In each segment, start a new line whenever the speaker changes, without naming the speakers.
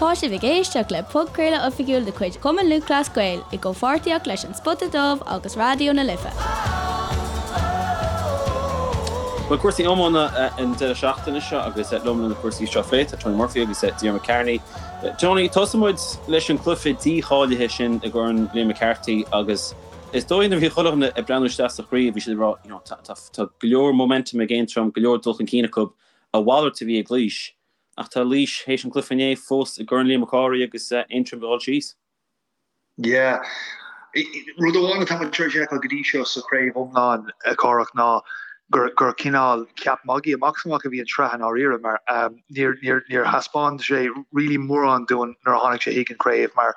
Tá sibh ag éisteacht le podchraoladh oifigiúil de chuid Chumann Lúthchleas Gael i gcomhpháirtíocht leis An Spota Dubh agus Raidió na Life.
Bhuel, cúrsaí iomána an deireadh seachtaine seo agus liom le na cúrsaí seo a phlé tá Tony Murphy agus Diarmuid Kearney. Tony, tosóidh muid leis an cluiche dícháilithe sin i gCorn Liam McCarthy agus is dóigh nuair a bhí chuile dhuine ag breathnú isteach sa chraobh bhí siad ag rá you know tá go leor momentum ag Aontroim, go leor dul chun cinn acu, a mhalairt a bhí ag Laois. Ach tá Laois théis an cluiche inné fós i gCorn Liam Mac Cárthaigh agus Aontroim ag dul síos.
Yeah. Rud amháin atá muid tar éis a fheiceáil go dtí seo sa chraobh iomlán, a Chárthach, ná gur gur cineál ceap magaidh amach is amach a bhí an tsraith i ndáiríre mar níor níor níor thaispeáin sé really mórán dúinn nuair a tháinig sé chuig an chraobh mar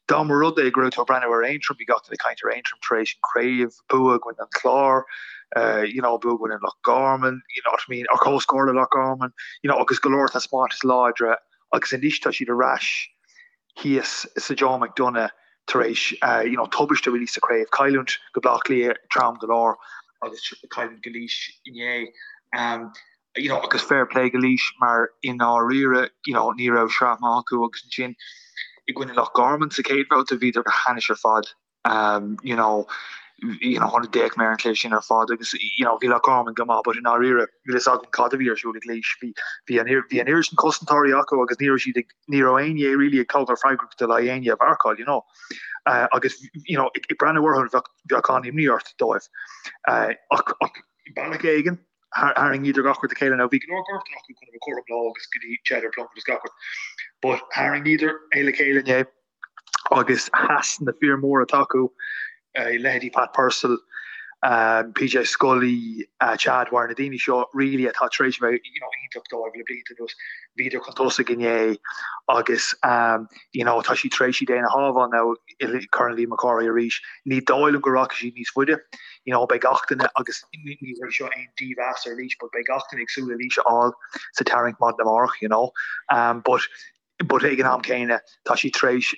dá mba rud é go raibh tú ag breathnú ar Aontroim bhí gach duine ag caint ar Aontroim tar éis an chraobh bua i gcoinne an Chláir, you know, bua i gcoinne Loch Garman, you know what I mean, or comhscór le Loch Garman, you know, agus go leor taispeántais láidre agus anois tá siad ar ais thíos sa Joe McDonagh tar éis, you know, tubaiste really sa chraobh, cailliúint go Baile Átha Cliath trom go leor agus cailliúint go Laois inné. Um, you know, agus fair play go Laois mar i ndáiríre, you know, ní raibh sraith maith acu agus ansin i gcoinne Loch Garman sa chéad bhabhta bhíodar go hainnis ar fad. you know, you know, d'fhéach mé ar an chluiche sin ar fad agus, you know, bhí Loch Garman go maith but i ndáiríre níl fhios agam cad a bhí ar siúl ag Laois. Bhí, bhí an, bhí an oiread sin cosantóirí acu agus ní raibh siad ag, ní raibh éinne really ag tógáil freagrachta le éinne a mharcáil, you know. Uh, agus, you know, ag, ag breathnú orthu bheadh, bheadh an-imní ort dóibh. Uh, ach, ach bealach éigin, tharraingíodar gach rud le chéile. Now bhí go leor gortuithe acu chun a bheith cothrom leo agus go dtí Cheddar Plunkett agus gach rud. But tharraingíodar é le chéile inné. agus sheas na fir móra atá acu, leithéidí Pat Purcell, PJ Scully, Chad Dwyer, na daoine seo really atá tar éis a bheith you know iontach dóibh le blianta anuas, bhíodar chun tosaigh inné agus you know tá siad tar éis iad féin a shábháil now i Corn Liam Mac Cárthaigh arís. Ní dóigh liom go rachaidh siad níos faide, you know beidh gach duine agus ní hé seo aon dímheas ar Laois but beidh gach duine ag súil le Laois a fháil sa tarraingt maidin amárach you know but but ag an am céanna tá siad tar éis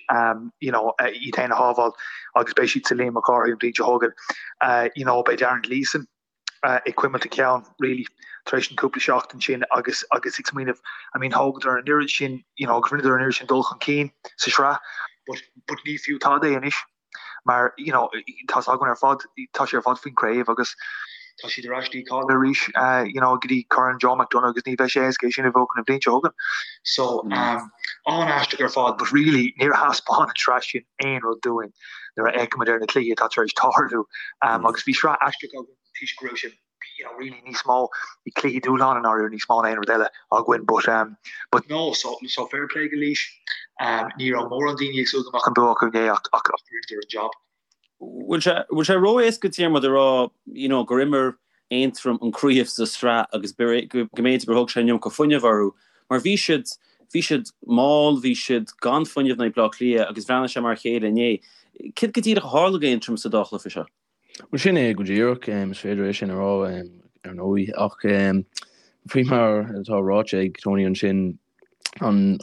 you know iad féin a shábháil agus beidh siad sa Liam Mac Cárthaigh an bhliain seo chugainn. You know beidh Darren Gleeson ag cuimilt a cheann really tar éis an cúpla seachtain sin agus agus ag smaoineamh I mean thógadar an oiread sin you know agus rinneadar an oiread sin dul chun cinn sa sraith but but ní fiú tada é anois. mar you know tá 's againn ar fad tá sé ar fad faoin craobh agus tá siad ar ais dícháilithe arís you know go dtí Corn Joe McDonagh agus ní bheidh sé éasca é sin a bhuachan an bhliain seo chugainn. So um an-aisteach ar fad but really níor thaispeáin an tsraith sin aon rud dúinn nuair a fhéachaimid ar na cluichí atá tar éis tarlú um agus bhí sraith aisteach againn toisc go raibh sé you know, really níos mó bhí cluichí dúshláin i ndáiríre níos mó ná aon rud eile againn but um, but no, so, so fair play go Laois. Um, ní raibh mórán daoine ag súil go mbeadh an bua acu inné ach ach ach rinneadar an job.
Bhfuil sé bhfuil sé ró-éasca Diarmuid a rá you know, gur imir Aontroim an craobh sa sraith agus go mb'fhéidir gur thóg sé an iomarca fuinnimh orthu mar bhí siad bhí siad mall, bhí siad gan fuinneamh in aghaidh Bleá Cliath agus bhreathnaigh sé mar a chéile inné. Céard go díreach a tharla d'Aontroim sa dá chluiche seo?
Bhuel, sin é go díreach, is féidir é sin a rá, ar ndóigh, ach faoi mar atá ráite ag Tony ansin, an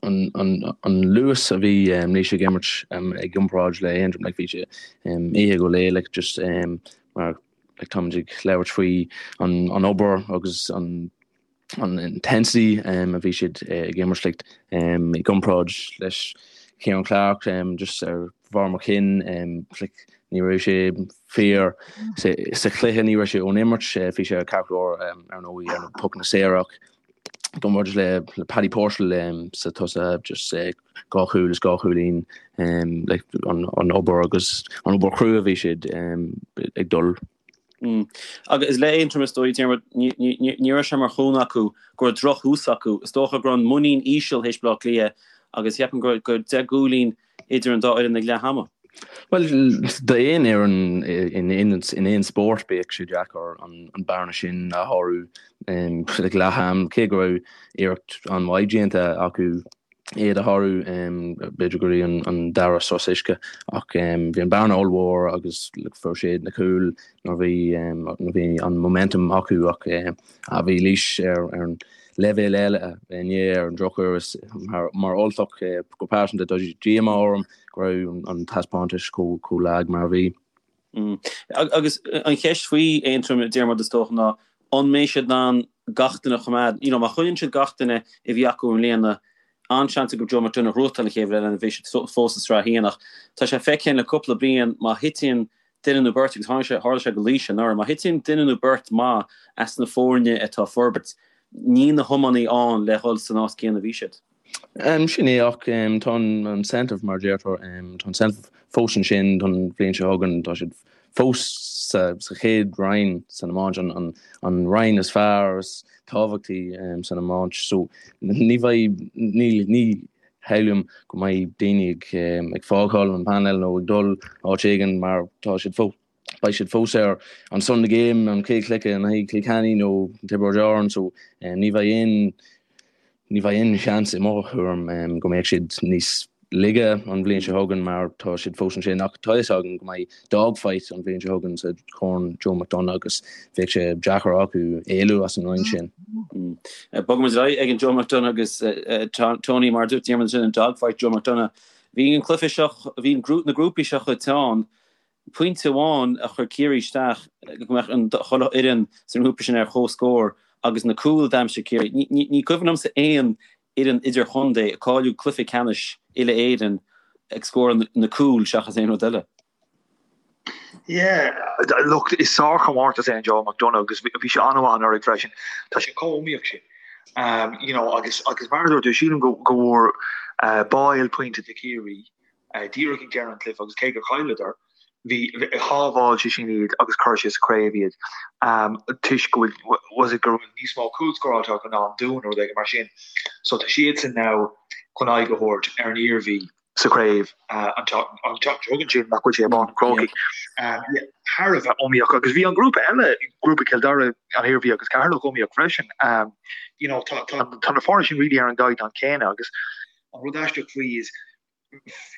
luas a bhí Laois ag imirt i gcomparáid le Aontroim, like, bhí sé oíche go léir, like, just mar, like, táimid ag labhairt faoi an obair agus an an intensity a bhí siad ag imirt like i gcomparáid leis Ciarán Clarke just ar bharr mo chinn like ní raibh sé fíor sa chluiche ní raibh sé ón imirt bhí sé ceart go leor ar ndóigh ar na pocanna saora ach i gcomparáid le Paddy Purcell sa tosach just dhá chúl is dhá chúilín like an obair agus an obair chrua a bhí siad ag dul
Agus le Aontroim is dóigh, Diarmuid, ní raibh sé mar chúnamh acu go raibh drochthús acu. Is dócha go raibh an muinín íseal théis Bleá Cliath agus cheapfainn go raibh 10 gcúilín idir an dá fhoireann ag leath ama.
Bhuel, d'aon fhoireann in aon spórt bheadh sé deacair an bearna sin a shárú ag leath am, cé go raibh iarracht an-mhaith déanta acu. iad a shárú, b'fhéidir go dtí an dara sos uisce, ach bhí an bearna ollmhór agus fuair siad na cúil nuair bhí nuair bhí an momentum acu ach bhí Laois ar an leibhéal eile inné ar an drochuair is mar Ultach go pearsanta tá díomá orm go raibh an taispeántas chomh lag mar a bhí.
Agus an cheist faoi Aontroim, Diarmuid, is dócha, ná an mbeidh siad in ann gach duine a choimeád? You know, má choinníonn siad gach duine a bhí acu i mbliana, An-seans acu Joe McDonagh a ghnóthachtáil an chéad bhliain eile nuair a bheidh siad fós sa Sraith 1 ach tá sé feicthe le cúpla bliain má thiteann duine nó beirt, agus tháinig sé, tharla sé go Laois anuraidh, má thiteann duine nó beirt maith as na foirne atá ag forbairt, níl na hiománaí ann le dhul san áit céanna a bhí siad.
Sin é ach tá an incentive mar a deirtear, tá an incentive fós ansin don bhliain seo chugainn, tá siad fós sa chéad roinn san iomáint, an roinn is fearr, is tábhachtaí san iomáint. So ní bheidh, ní, ní shamhlaím go mbeidh daoine ag fágáil an painéal nó ag dul áit éigin mar tá siad fós, beidh siad fós ar an Sunday game, an chéad chluiche in aghaidh Cill Chainnigh nó Tiobraid Árann so ní bheidh aon, ní bheidh aon seans i mo thuairim go mbeadh siad níos laige an bhliain seo chugainn mar tá siad fós ansin ach tá fhios againn go mbeidh dogfight an bhliain seo chugainn sa Chorn Joe McDonagh agus bheadh sé deacair acu éalú as an roinn sin.
Bogfaimid ar aghaidh ag an Joe McDonagh agus Tony mar a dúirt Diarmuid ansin an dogfight Joe McDonagh. Bhí an cluiche seo, bhí na grúpaí seo chomh teann Pointe amháin a chuir Ciarraí isteach go mbeadh an chuile fhoireann sa ngrúpa sin ar comhscór agus na cúil a d'aimsigh Ciarraí. Ní cuimhin liomsa aon fhoireann idirchontae ag cáiliú cluiche ceannais uile-Éireann ag scóráil na cúil seachas aon rud eile.
Yeah, look, is sárchomórtas é an Joe McDonagh agus bhí sé an-mhaith anuraidh freisin. Tá sé chomh iomaíoch sin. You know, agus agus mar a dúirt tú, sílim go go bhfuair Boyle pointe do Chiarraí díreach ag deireadh an chluiche agus cé gur chailleadar, bhí, shábháil sé sin iad agus chuir sé sa chraobh iad toisc go bhfuil, was it go raibh níos mó cúl scóráilte acu ná an Dún nó rud éigin mar sin. So tá siadsan now chun aghaidh a thabhairt ar an Iarmhí sa chraobh an tseachtain seo chugainn sin nach bhfuil sé i bPáirc an Chrócaigh. Thar a bheith iomaíoch agus bhí an grúpa eile, grúpa Chill Dara, an Iarmhí agus Ceatharlach iomaíoch freisin. You know, tá, tá, tá na foirne sin really ar an gcaighdeán céanna agus an rud aisteach faoi is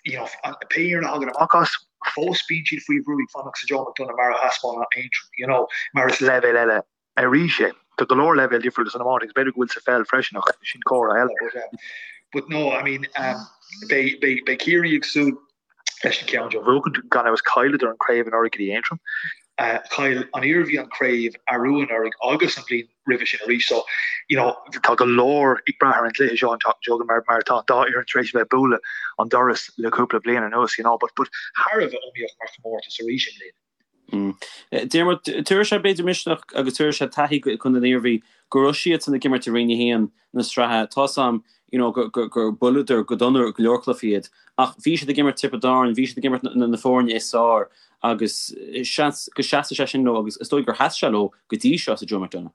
you know, pé fhoireann a thagann amach as, fós bíonn siad faoi bhrú ag fanacht sa Joe McDonagh mar a thaispeáin Aontroim, you know, mar is leibhéal eile arís é. Tá go leor leibhéal difriúla san iomáint agus b'fhéidir go bhfuil sa pheil freisin ach sin comhrá eile. But, um, but no, I mean, um, beidh, beidh, beidh Ciarraí ag súil leis an ceann seo a bhuachaint, gan amhras chailleadar an craobh anuraidh go dtí Aontroim. Uh, chaill an Iarmhí an craobh arú anuraidh agus an bhliain roimhe sin arís. So, you know, tá go leor ag brath ar an gcluiche seo an tseachtain seo chugainn mar mar tá an dá fhoireann tar éis a bheith ag bualadh an doras le cúpla bliain anuas, you know, but but thar a bheith iomaíoch mar chomórtas arís i mbliana.
Mm. Diarmuid, tabharfaidh sé b'fhéidir misneach agus tabharfaidh sé taithí go Contae na hIarmhí go raibh siadsan ag imirt i Roinn 1 na sraithe. Tá 's a'm you know, gur gur buaileadar go dona go leor cluichí iad ach bhí siad ag imirt Tiobraid Árann, bhí siad ag imirt na na foirne is fearr agus seans go seasfaidh sé sin leo agus is dóigh gur sheas sé leo go dtí seo sa Joe McDonagh.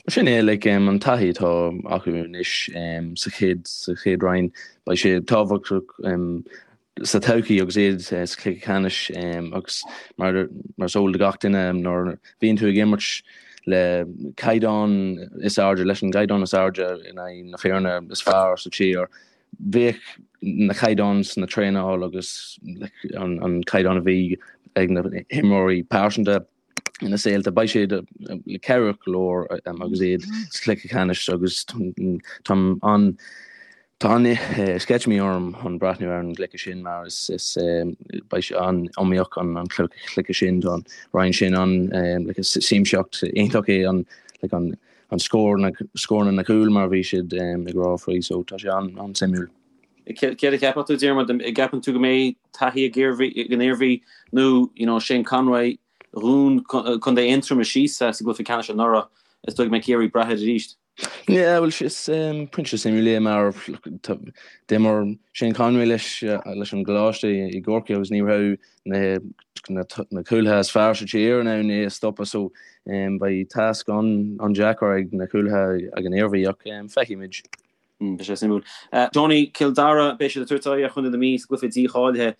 Sin é, like, an taithí atá acu anois sa chéad sa chéad roinn, beidh sé tábhachtach sa todhchaí agus iad sa chluiche ceannais agus mar mar is eol do gach duine nuair a bhíonn tú ag imirt le caighdeán is airde, leis an gcaighdeán is airde in aghaidh na foirne is fearr sa tír, bheadh na caighdeáin sna traenáil agus an caighdeán a bhí ag na himreoirí pearsanta ina saolta, beidh siad cabhrach go leor agus iad sa chluiche ceannais agus tá an tá an sceitimíní orm chun breathnú ar an gcluiche sin mar is beidh sé an-iomaíoch an cluiche sin, tá an roinn sin an siamsaíocht iontach é an an scór, scóranna na cúil mar a bhí siad ag rá faoi so tá sé an-suimiúil.
Céard a cheapfadh tú Diarmuid, an gceapann tú go mbeidh taithí ag an Iarmhí nó you know Shane Conway Dhún Contae Aontroma síos sa gcluiche ceannais anuraidh, is dóigh go mbeidh Ciarraí ag brath air arís.
Yeah, bhuel is pointe suimiúil é mar d'imir Shane Conway leis leis an gcoláiste i gCorcaigh agus ní raibh na na cúlaithe is fearr sa tír in ann é a stopadh so beidh tasc an-deacair ag na cúlaithe ag an Iarmhí ach feicfimid.
Beidh sé suimiúil. Tony, Cill Dara, beidh siad ag tabhairt aghaidh ar Chontae na Mí sa gcluiche dícháilithe.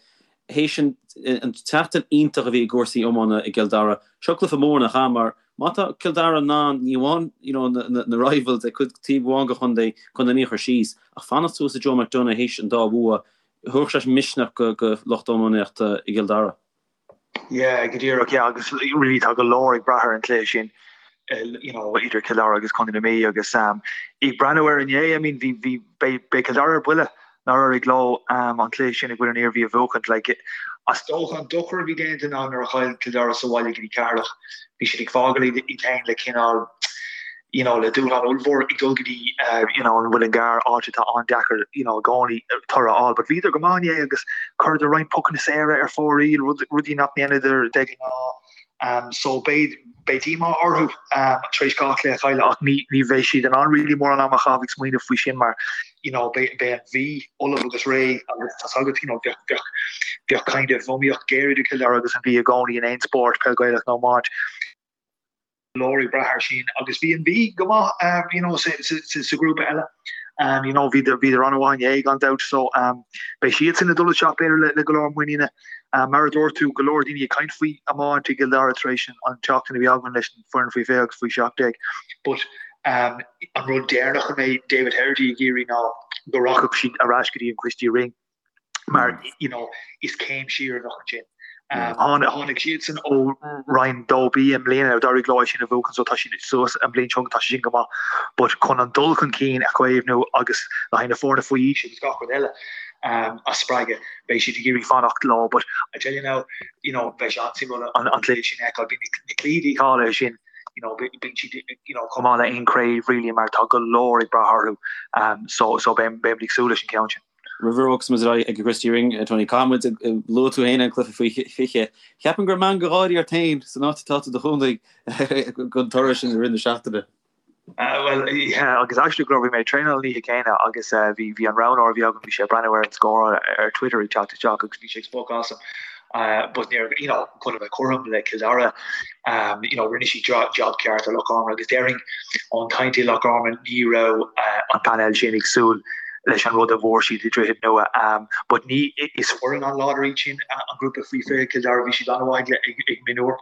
Théis an tseachtain iontach a bhí i gcúrsaí iomána i gCill Dara, seo cluiche mór nach ea mar má tá Cill Dara in ann ní amháin you know na rivals ag cuid taobh amháin de chontae, Contae na Mí a chur síos ach fanacht suas sa Joe McDonagh théis an dá bhua, Thabharfadh sé misneach go lucht iománaíochta i gCill Dara.
Yeah, go díreach, yeah, agus really tá go leor ag brath ar an chluiche sin, you know, idir Cill Dara agus Contae na Mí agus um, ag breathnú ar inné, I mean, bhí, bhí, beidh, beidh Cill Dara ar buile nár éirigh leo um, an cluiche sin i gcoinne an Iarmhí a bhuachaint, like, is dócha an dochar a bhí déanta ná nuair a chaill Cill Dara sa bhaile go dtí Ceatharlach, bhí siad ag fágáil iad féin le cineál. You know, le dúshlán ollmhór ag dul go dtí you know, an Muileann gCearr, áit atá an-deacair you know, i gcónaí toradh a fháil. But bhíodar go maith inné agus chuireadar roinnt pocanna saora ar fóraoil, rudaí nach ndéanadar de ghnáth. Um, so beidh beidh díomá orthu um, tar éis 2 chluiche a chailleadh ach ní ní bheidh siad in ann really mórán ama a chaitheamh ag smaoineamh faoi sin mar you know, beidh beidh an Mhí ullamh agus réidh agus tá's agat you know, bheadh bheadh bheadh kind of iomaíocht ghéar idir Cill Dara agus an Mhí i gcónaí in aon spórt, peil Ghaelach nó iomáint. leor ag brath air sin agus bhí an Mhí go maith you know sa ghrúpa eile you know bhíodar bhíodar an-mhaith inné gan dabht so beidh siadsan ag dul isteach b'fhéidir le go leor muiníne. Mar a dúirt tú go leor daoine ag caint faoi iomáint i gCill Dara tar éis an tseachtain a bhí againn leis an foireann faoi 20 agus faoi 17 but an rud deireanach a mbeidh David Herity ag iarraidh ná go rachadh siad ar ais go dtí an Christy Ring. mar you know is céim siar a bheadh ansin. Tháinig siadsan ó Roinn 2B i mbliana, d'éirigh leo é sin a bhuachan so tá siad suas an bhliain seo tá sé sin go maith but chun an dul chun cinn a chaomhnú agus le haghaidh na foirne faoi aois agus gach rud eile a spreagadh beidh siad ag iarraidh fanacht leo but I tell you now you know beidh sé an-suimiúil an cluiche sin a fheiceáil. Bíonn na cluichí dícháilithe sin you know bíonn siad you know chomh maith le aon chraobh really mar tá go leor ag brath orthu so so beidh beidh muid ag súil leis an ceann sin.
Roimh a bhogfas muid ar aghaidh ag an Christy Ring, Tony, caithfidh muid, luaigh tú féin an cluiche faoi 20. Cheapfainn go raibh meangadh gáirí ort féin san áit atá tú i do chónaí don toradh sin i rith na seachtaine.
Bhuel, yeah, agus actually go raibh, bhí mé ag traenáil an oíche céanna agus bhí, bhí an roghnóir a bhí agam, bhí sé ag breathnú ar an scór ar Twitter ag teacht isteach agus bhí sé ag spochadh asam. But níor, you know, chun a bheith cothrom le Cill Dara, you know, rinne siad job ceart ar Loch Garman agus déarfainn ón chaint i Loch Garman ní raibh an painéal sin ag súil leis an rud a bhfuair siad i Droichead Nua. But ní, is foireann an-láidir iad sin, an grúpa faoi 20 Cill Dara, bhí siad an-mhaith ag ag mionúir.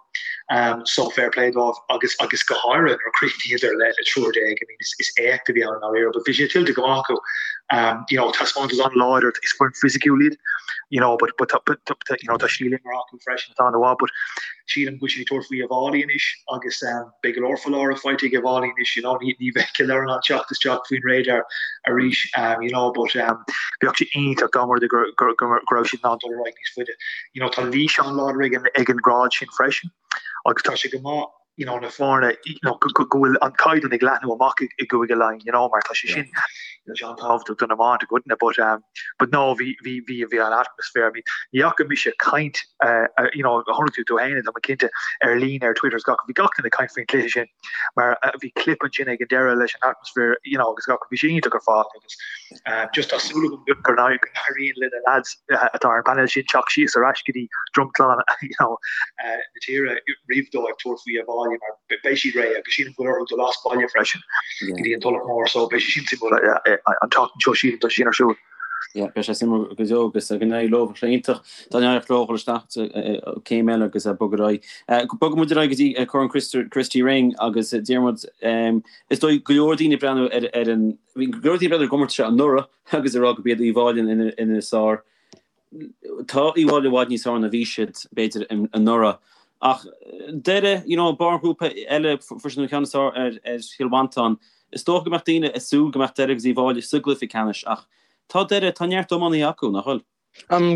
So fair play dóibh agus agus go háirithe nuair a chríochnaíodar le le triúr déag, I mean is is éacht a bhí ann i ndáiríre, but bhí sé tuillte go maith acu. You know, taispeántas an-láidir, is foireann fisiciúil iad, you know, but but but you know, tá stíl imeartha acu freisin atá an-mhaith, but sílim go bhfuil siad ag tabhairt faoi Uíbh Fhailí anois agus beidh go leor foláireamh faighte ag Uíbh Fhailí anois, you know, ní ní bheidh Cill Dara in ann teacht isteach faoin radar arís, you know, but bheadh sé iontach dá mba rud é go go go raibh siad in ann dul ar aghaidh níos faide. You know, tá Laois an-láidir ag an ag an grád sin freisin agus tá sé go maith you know, na foirne, you know, go bhfuil an caighdeán ag leathnú amach i gCúige Laighean, you know, mar tá sé sin, you know, sé an-tábhachtach don iomáint i gcoitinne, but, um, but no, bhí, bhí, bhí, bhí an atmaisféar, I mean, ní fhaca mise caint, uh, uh, you know, chonaic tú tú féin, tá mé cinnte, ar líne, ar Twitter is gach, bhí gach duine ag caint faoin cluiche sin, mar uh, bhí clip ansin ag an deireadh leis an atmaisféar, you know, agus gach, bhí sé iontach ar fad agus, um, just tá súil agam go n-éiríonn le na lads atá ar an bpainéal sin teacht síos ar ais go dtí dromchla, you know, na tíre roimh dóibh tabhairt faoi Uíbh Fhailí mar beidh siad réidh agus sílim go bhfuil orthu dul as baile freisin go dtí an Tulach Mhór so beidh sé sin suimiúil an tseachtain seo sílim tá sé sin ar siúl.
Yeah, beidh sé suimiúil go deo agus go n-éirí leo sé iontach dá n-éireodh leo dhul isteach céim eile agus bogadh ar aghaidh. Bogfaidh muid ar aghaidh go dtí Corn Christy Ring agus Diarmuid is dóigh go leor daoine ag breathnú ar ar an bhí go leor daoine ag breathnú ar an gcomórtas seo anuraidh agus ag rá go b'iad Uíbh Fhailí ina is fearr. Tá Uíbh Fhailí i bhfad níos fearr ná bhí siad, b'fhéidir, anuraidh. Ach Doire, you know, barr an ghrúpa eile, fuair siad an ceann is fearr ar Chill Mhantáin. Is dócha go mbeadh daoine ag súil go mbeadh Doire agus Uíbh Fhailí sa gcluiche ceannais ach tá Doire, tá neart iománaithe acu, nach bhfuil?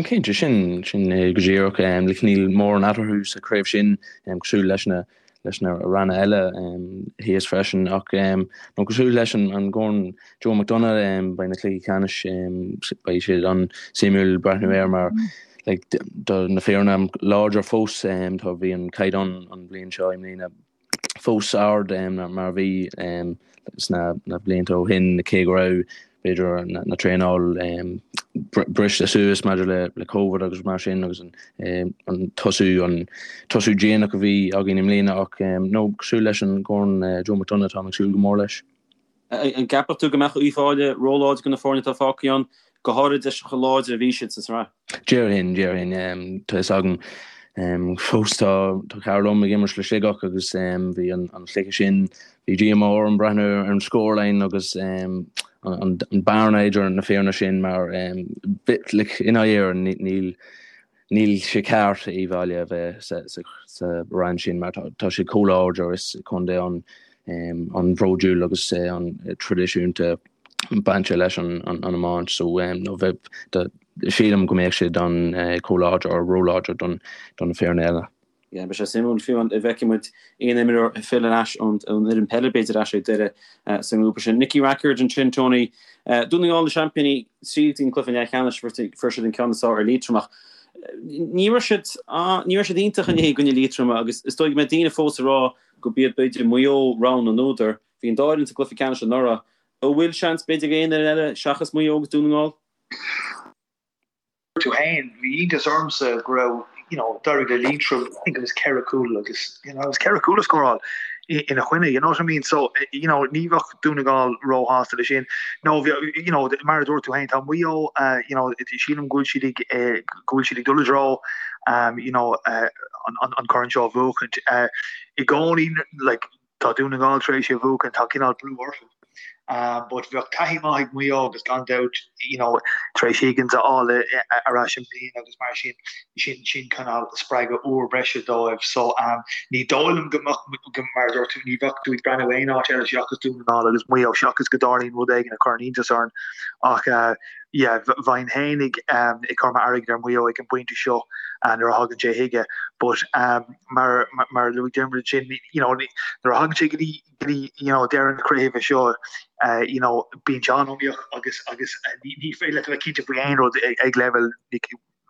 Cinnte, sin, sin é go díreach. Like, níl mórán eatarthu sa chraobh sin, cosúil leis na, leis na ranna eile thíos freisin ach nó cosúil leis an gCorn Joe McDonagh beidh na cluichí ceannais beidh siad an-suimiúil breathnú air mar like tá na foirne láidir fós tá bhí an caighdeán an bhliain seo i mbliana fós ard mar a bhí sna na blianta ó shin cé go raibh b'fhéidir na traenáil briste suas maidir le le Covid agus mar sin agus an an tosú an tosú déanach a bhí againn i mbliana ach nó cosúil leis an gCorn Joe McDonagh táim ag súil go mór leis.
An gceapfadh tú go mbeadh Uíbh Fhailí róláidir do na foirne atá fágtha ann, go háirid leis chomh láidir a bhí siad sa tsraith?
Déarfainn, déarfainn. Tá fhios agam fós tá cara liom ag imirt le Sligeach agus bhí an cluiche sin, bhí díomá orm breathnú ar an scoreline agus an bearna idir na foirne sin mar like i ndáiríre níl Níl sé ceart Uíbh Fhailí a bheith sa roinn sin mar tá siad chomh láidir, is contae an-bhródúil agus an-traidisiúnta bainte leis an iomáint so nó bheith sílim go mbeadh siad an chomh láidir or róláidir don na foirne eile.
Yeah, beidh sé suimiúil fiú an bhfeicfidh muid aon imreoir ag filleadh ar ais ón fhoireann peile b'fhéidir ar ais ag Doire sa ngrúpa sin. Nicky Rackard ansin, Tony. Dún na nGall na seaimpíní tríd an cluiche leathcheannais fuair siad an ceann is fearr ar Liatroim ach ní raibh siad ní raibh siad iontach inné i gcoinne Liatroma agus is dóigh go mbeidh daoine fós ag rá go b'iad b'fhéidir Maigh Eo rogha na n-údar. Bhí an dá fhoireann sa gcluiche ceannais anuraidh. An bhfuil seans b'fhéidir ag aon fhoireann eile seachas Maigh Eo agus Dún na nGall?
tú féin, bhí iontas ormsa go raibh, you know, d'éirigh le Liatroim, I think it was 4 cúl agus, you know, it was 4 cúl a scóráil ina choinne, you know what I mean? So, you know, ní bheadh Dún na nGall róshásta leis sin. No, you know, mar a dúirt tú féin, tá Maigh Eo, uh, you know, sílim go bhfuil siad ag, eh, go bhfuil siad ag dul i dtreo, um, you know, uh, an, an, an corn seo a bhuachaint. Uh, I gcónaí, like, Tá Dún na nGall tar éis é a bhuachan, tá cineál brú orthu. But bheadh taithí maith ag Maigh Eo agus gan dabht, you know, tar éis Higgins a fháil ar ais i mbliana agus mar sin, sin, sin cineál spreagadh úr breise dóibh. So, ní dóigh liom go mbeadh, mar a dúirt tú, ní bheadh tú ag breathnú aon áit eile seachas Dún na nGall agus Maigh Eo seachas go dtarlaíonn rud éigin a chuireann iontas orainn. Ach, yeah, bheinn féin ag, ag cur m'airgead ar Mhaigh Eo ag an bpointe seo nuair a thagann sé chuige. But, mar mar a luaigh Diarmuid ansin, you know, nuair a thagann sé go dtí go dtí you know, deireadh na craoibhe seo, uh, you know, bíonn sé an-iomaíoch agus agus uh, ní, ní féidir leat a bheith cinnte faoi aon rud ag, ag leibhéal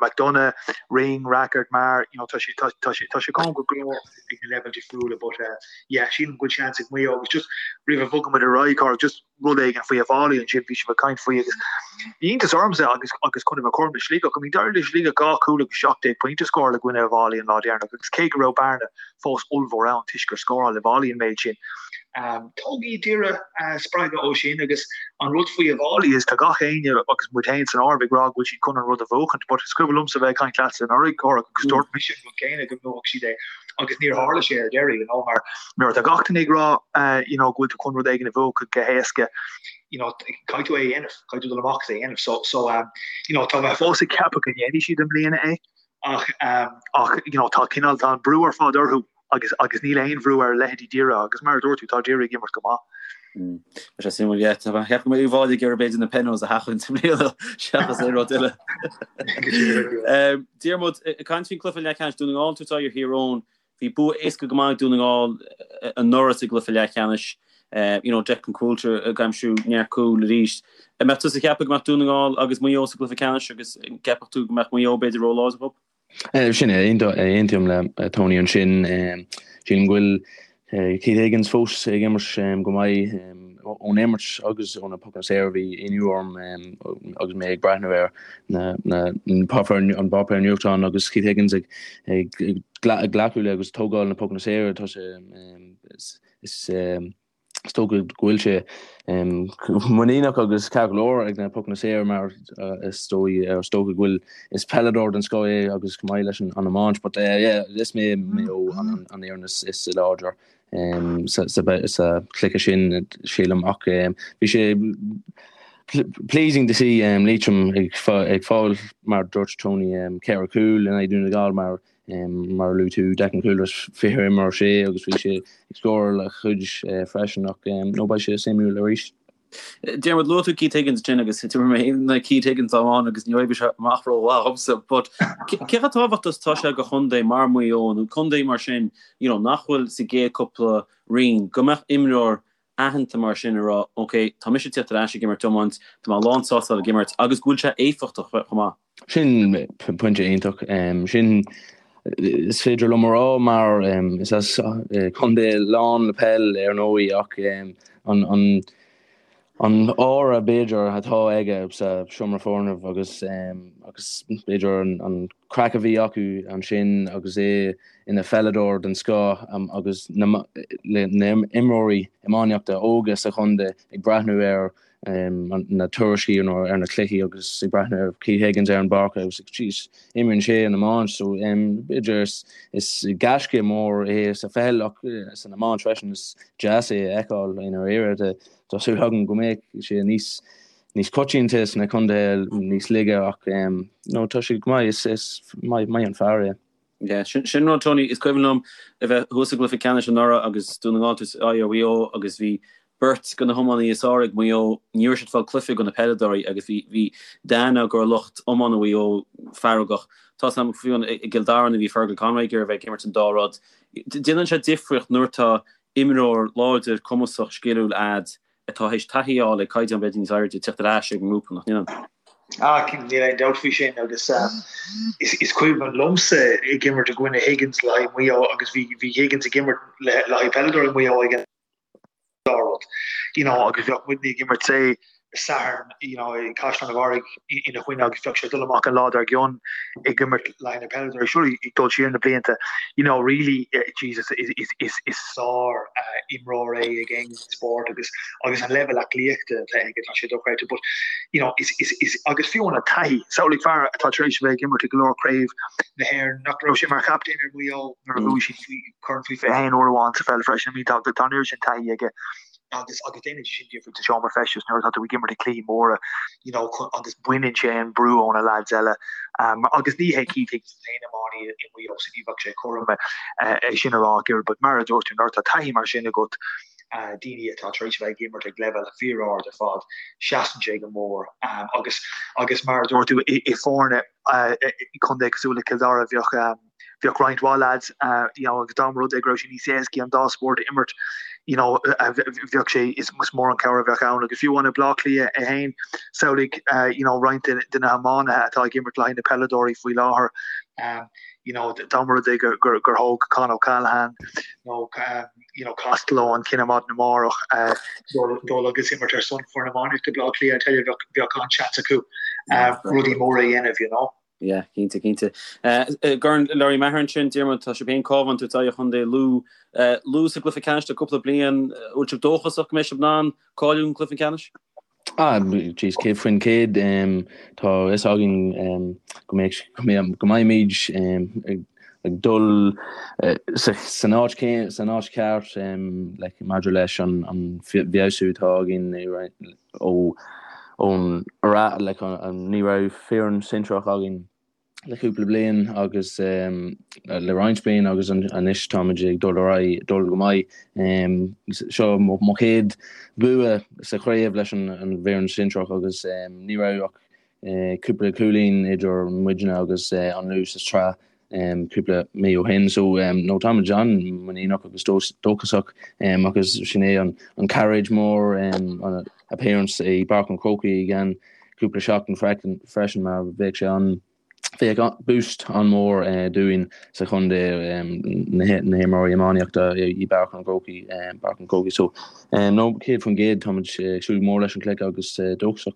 McDonagh, Ring, Rackard, Maher, you know, tá sé tá tá sé tá sé cúng go leor ag na leibhéil difriúla, but uh, yeah, sílim go bhfuil seans ag Maigh Eo agus just roimh a bhogann muid ar aghaidh, Cárthach, just rud éigin faoi Uíbh Fhailí ansin, bhí sibh ag caint faoi agus bhí iontas ormsa agus agus chun a bheith cothrom le Sligeach, I mean d'éirigh le Sligeach 2 chúl agus 17 pointe a scóráil i gcoinne Uíbh Fhailí an lá deireanach agus cé go raibh bearna fós ollmhór ann toisc gur scóráil Uíbh Fhailí an méid sin. Um, tógfaidh Doire uh, spreagadh ó sin agus an rud faoi Uíbh Fhailí is tá gach éinne agus muid féin san áireamh ag rá go bhfuil siad chun an rud a bhuachaint, but is cuimhin liomsa bheith ag caint leatsa anuraidh Cárthach agus dúirt mise an rud céanna go mbuafadh siad é agus níor tharla sé ar deireadh, you know, mar Nuair atá gach duine ag rá you know go bhfuil tú chun rud éigin a bhuachan go héasca, you know, caithfidh tú é a dhéanamh, caithfidh tú dul amach agus é a dhéanamh. So, so um, you know, tá mé fós ag ceapadh go ndéanfaidh siad i mbliana é ach um, ach you know, tá cineál tá an brú ar fad orthu agus agus níl aon bhrú ar leithéidí Doire agus mar a dúirt tú tá Doire ag imirt go maith.
Mm. Tá sé suimiúil yeah, tá mé ag ceapadh go mbeidh Uíbh Fhailí ag iarraidh b'fhéidir na penos a sheachaint i mbliana seachas aon rud eile. Um, Diarmuid, ag caint faoin cluiche leathcheannais Dún na nGall tabhairt aghaidh ar Thír Eoghain, Bhí bua éasca go maith ag Dún na nGall anuraidh sa gcluiche leathcheannais. You know, Declan Coulter ag aimsiú neart cúl arís. An mbeadh tusa ag ceapadh go mbeadh Dún na nGall agus Maigh Eo sa gcluiche ceannais agus an gceapfadh tú go mbeadh Maigh Eo b'fhéidir ró-láidir dhóibh?
Sin é, aontaím le Tony ansin. Sílim go bhfuil Keith Higgins fós ag imirt go maith ón imirt agus ó na pocanna saora. Bhí ionadh orm agus mé ag breathnú ar an bpáipéar nuachtáin agus Keith Higgins ag glacadh le agus tógáil na pocanna saora. Tá sé is Is dócha go bhfuil sé muiníneach agus ceart go leor ag na pocanna saora mar is dóigh is dócha go bhfuil is peileadóir den scoth é agus chomh maith leis an iomáint but yeah is mé Maigh Eo an an fhoireann is is láidre sa sa sa chluiche sin sílim ach bhí sé pleasing to see Liatroim ag ag fáil mar dúirt Tony 4 cúl in aghaidh Dún na Gall mar Mar a luaigh tú, Declan Coulter, 20 imreoir sé agus bhí sé ag scóráil a chuid freisin ach no beidh sé suimiúil arís.
Diarmuid, luaigh tú Keith Higgins ansin agus d'imir mé féin in aghaidh Keith Higgins am amháin agus ní oibrigh sé amach rómhaith dhomsa but cé chomh tábhachtach is atá sé do chontae mar Maigh Eo nó contae mar sin you know nach bhfuil sa gcéad cúpla roinn go mbeadh imreoir aitheanta mar sin ag rá ok tá mise ag tíocht ar ais ag imirt iomáint, tá mé lán sásta ag imirt agus go bhfuil sé éifeachtach chomh maith.
Sin pointe iontach. Sin is féidir liom a rá mar is as contae lán le peil ar ndóigh ach an an an aura b'fhéidir atá aige sa seomra foirne agus agus b'fhéidir an an craic a bhí acu ansin agus é ina pheileadóir den scoth agus na na imreoirí iománaíochta óga sa chontae ag breathnú ar na tuairiscí nó ar na cluichí agus ag breathnú ar Keith Higgins ar an bpáirc agus ag jeez imríonn sé an iomáint so b'fhéidir is gaisce mór é sa pheil ach san iomáint freisin is deas é a fheiceáil i ndáiríre. Tá súil agam go mbeidh sé níos níos coitianta sna contaetha níos laige ach no tá sé go maith is maith an fear é.
Yeah, sin sin rud Tony, is cuimhin liom a bheith thuas i gcluiche ceannais anuraidh agus Dún na nGall ag tabhairt aghaidh ar Mhaigh Eo agus bhí. Beirt de na hiománaithe is fearr ag Maigh Eo, ní raibh siad ag fáil cluife do na peileadóirí agus bhí bhí Dan go raibh lucht iomána Mhaigh Eo feargach. Tá 's agam fiú i gCill Dara nuair a bhí Fergal Conway ag iarraidh a bheith ag imirt an dá rud. Déanann sé difríocht nuair atá imreoir láidir, cumasach, sciliúil a'd atá théis taithí a fháil ag caighdeán b'fhéidir níos airde teacht ar ais ag an ngrúpa, nach ndéanann?
Ah, cinnte, níl aon dabht faoi sin agus is cuimhin liomsa ag imirt i gcoinne Higgins le haghaidh Maigh Eo agus bhí bhí Higgins ag imirt le haghaidh peileadóirí Mhaigh Eo ag an dá rud, you know, agus bheadh muidne ag imirt say Satharn, you know, i gCaisleán an Bharraigh ina choinne agus bheadh sé ag dul amach an lá dár gcionn ag imirt le haghaidh na peileadóirí. Sure, ag dul siar na blianta, you know, really, Jesus, is is is is sár imreoir é ag aon spórt agus agus an leibhéal aclaíochta atá aige, tá sé dochreidte. But, you know, is is is agus fiú an taithí, samhlaigh fear atá tar éis a bheith ag imirt i go leor craobh na hÉireann, nach raibh sé mar chaptaen ar Mhaigh Eo nuair a bhuaigh siad faoi corn faoi 21 uair amháin sa pheil freisin. I mean, tá tá an oiread sin taithí aige. agus agus déanann sé sin difríocht sa seomra feistis nuair atá tú ag imirt i cluichí móra you know agus baineann sé an brú ó na lads eile um, agus ní hé Keith Higgins an t-aon iománaí i Maigh Eo so ní bheadh sé cothrom é sin a rá ach oiread but mar a dúirt tú nuair atá taithí mar sin agat uh, daoine atá tar éis a bheith ag imirt ag leibhéal fíor-ard ar fad seasann sé go mór um, agus agus mar a dúirt tú i, i foirne uh, i contae cosúil le Cill Dara bheadh um, Bheadh roinnt mhaith lads, you know, agus dá mba rud é go raibh sé níos éascaí an dá spórt a imirt, you know, bheadh sé, is mór an cabhair a bheadh ann. Agus fiú amháin i Bleá Cliath é féin, samhlaigh, you know, roinnt de na hiománaithe atá ag imirt le haghaidh na peileadóirí faoi láthair, you know, dá mba rud é gur thóg Con O'Callaghan nó, you know, Costello an cinneadh maidin amárach dul agus imirt ar son foireann iománaíochta Bleá Cliath, I tell you, bheadh an-seans acu rudaí móra a dhéanamh, you know.
Yeah, cinnte, cinnte. I gCorn Lory Meagher ansin, Diarmuid, tá sibh féin Cabhán ag tabhairt aghaidh ar Chontae Lú. Lú sa gcluiche ceannais le cúpla bliain. Bhfuil sibh dóchasach go mbeidh sibh in ann cáiliú don gcluiche ceannais?
Ah, jeez, 100%. Tá a fhios againn go mbeidh, go mbeimid ag dul san áit san áit cheart like maidir leis an bhfeabhsú atá againn ó ón like ní raibh foireann sinsearach againn le cúpla bliain agus le roinnt bliain agus anois táimid ag dul ar aghaidh, dul go maith. Seo mo chéad bua sa chraobh leis an bhfoireann sinsearach agus ní raibh ach cúpla cúilín idir muidne agus an Lú sa tsraith cúpla mí ó shin. So no táimid an-mhuiníneach agus dóchasach agus sin é an cairéid mór an appearance i bPáirc an Chrócaigh i gceann cúpla seachtain freisin mar bheadh sé an bheadh boost an-mhór dúinn sa chontae na himreoirí iománaíochta i bPáirc an Chrócaigh Páirc an Chrócaigh. So no 100% táimid ag súil go mór leis an chluiche agus dóchasach.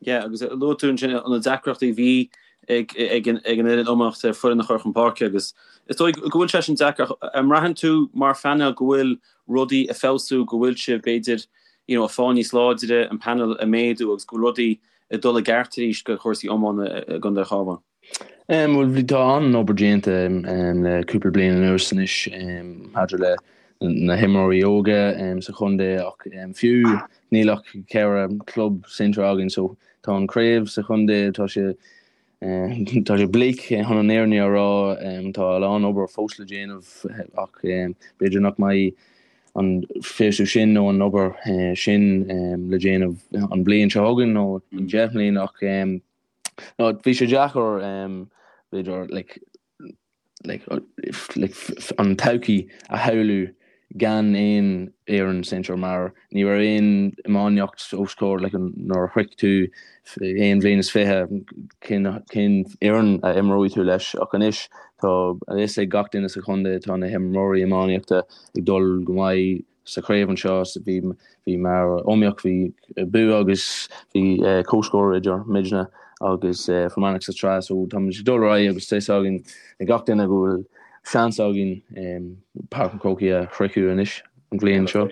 Yeah, agus luaigh tú ansin na deacrachtaí a bhí ag ag an fhoireann iománaíochta foireann a chur chun páirce agus is dóigh go bhfuil sé sin deacair. An mbraitheann tú mar phainéal go bhfuil rudaí ag feabhsú, go bhfuil sibh b'fhéidir you know, ag fáil níos láidre, an panel ag méadú agus go bhfuil rudaí ag dul i gceart arís do chúrsaí iomána i gContae an Chabháin?
Bhuel, bhí, tá an-obair déanta le cúpla bliain anuas anois maidir le na himreoirí óga sa chontae ach fiú níl ach ceithre chlub sinsear againn so tá an chraobh sa chontae, tá sé tá sé bleak chun an fhírinne a rá, tá a lán obair fós le déanamh ach b'fhéidir nach mbeidh an feabhsú sin nó an obair sin le déanamh an bhliain seo chugainn nó i 10 mbliana ach No, bhí sé deacair, b'fhéidir, like, like, like, an todhchaí a shamhlú gan aon fhoireann sinsear mar ní raibh aon iomaíocht os comhair, like, nuair a shroich tú aon bhliain is 20, cén, cén fhoireann a imreoidh tú leis ach anois tá a fhios ag gach duine sa chontae tá na himreoirí iománaíochta ag dul go maith sa chraobh anseo. Bhí bhí mar iomaíocht, bhí bua agus bhí comhscór idir muidne agus Fear Manach sa tsraith so táimid ag dul ar aghaidh agus tá fhios againn ag gach duine go bhfuil seans againn Páirc an Chrócaigh a shroicheadh anois an bhliain seo.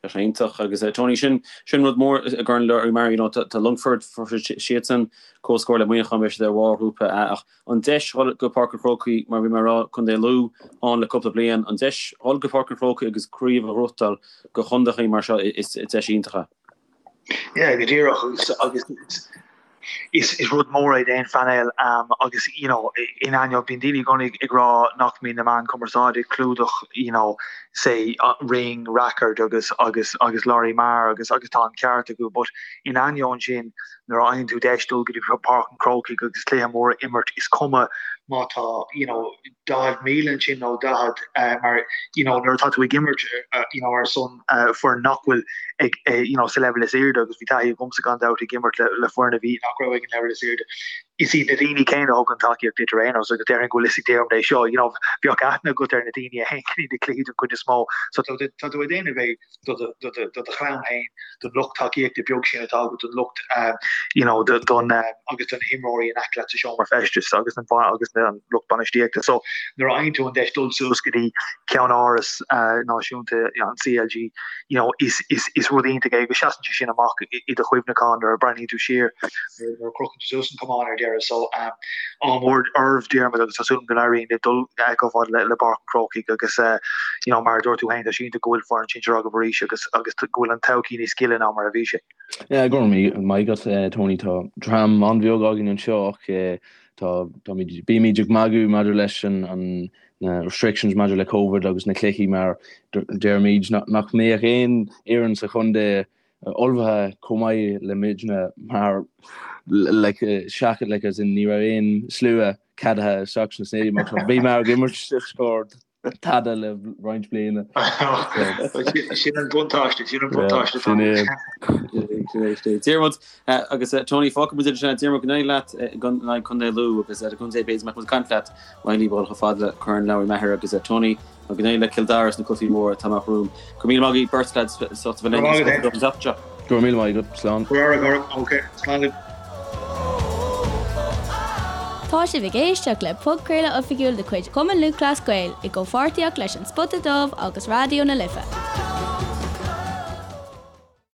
Tá sé iontach agus Tony sin sin rud mór i gCorn Lory Meagher you know tá Longfort fuair siadsan comhscór le Muineachán beidh siad ar bharr ghrúpa A ach an deis dhul go Páirc an Chrócaigh, mar bhí mé a rá, Contae Lú ann le cúpla bliain, an deis dhul go Páirc an Chrócaigh agus craobh a ghnóthachtáil do chontaethaí mar seo, is deis iontach é.
Yeah, go díreach agus agus. Is is rud mór é d'aon phainéal agus you know in ainneoin bíonn daoine i gcónaí ag rá nach mbíonn na meáin cumarsáide ag clúdach you know say Ring Rackard agus agus agus Lory Meagher agus agus tá an ceart acu but in ainneoin sin nuair a fhaigheann tú deis dul go dtí Páirc an Chrócaigh agus cluiche mór a imirt is cuma má tá you know 40,000 ansin nó 40 mar you know nuair atá tú ag imirt you know ar son foireann nach bhfuil ag you know sa leibhéal is airde agus bhí taithí agamsa gan dabht ag imirt le le foireann a bhí nach raibh ag an leibhéal is airde. Is iad na daoine céanna a thugann tacaíocht duit ar aon nós agus déarfainn go bhfuil fhios ag Diarmuid é seo you know bheadh aithne agat ar na daoine a théann go dtí na cluichí den chuid is mó so tá tú ag déanamh é do do chlann féin, don lucht tacaíochta beag sin atá agat, don lucht you know don agus do na himreoirí in aice leat sa seomra feistis agus an agus an lucht bainistíochta. So nuair a fhaigheann tú an deis dul suas go dtí ceann-áras náisiúnta an CLG, you know is is is rud iontach é agus seasann sé sin amach i do chuimhneachán nuair a breathnaíonn tú siar nuair a chrochann tú suas an camán ar deireadh. So ádh mór oraibh Diarmuid agus tá súil agam go n-éiríonn libh dul chomh fada le le Páirc an Chrócaigh agus you know mar a dúirt tú féin tá sé iontach go bhfuil foireann sinsir agaibh arís agus agus go bhfuil an todhchaí níos gile ná mar a bhí sé.
Yeah, go raibh maith agat Tony tá dream an-bheag againn anseo ach tá táimid bímid ag magadh maidir leis an an na restrictions maidir le Covid agus na cluichí mar deirimid nach mbeadh aon fhoireann sa chontae ullmhaithe chomh maith le muidne mar like seachas like as in ní raibh aon slua ceadaithe isteach sna stadium ach bhí mar ag imirt scór tada le roinnt bliana.
Sin an buntáiste, sin an buntáiste. Sin é.
Diarmuid agus Tony fágfaidh muid sin Diarmuid go n-éirí leat in aghaidh Contae Lú agus ar an gcontae b'fhéidir mbeadh muid ag caint leat má théann libh chomh fada le Corn Lory Meagher agus Tony Go n-éirí le Cill Dara sna cluichí móra atá amach romham. Go raibh míle maith agaibh beirt lads as ucht a bheith linn an tseachtain seo.
Go raibh míle maith agat. Slán.
Go raibh maith agat. Ok. Slán libh.
Tá sibh ag éisteacht le podchraoladh oifigiúil de chuid Chumann Lúthchleas Gael i gcomhpháirtíocht leis An Spota Dubh agus Raidió na Life.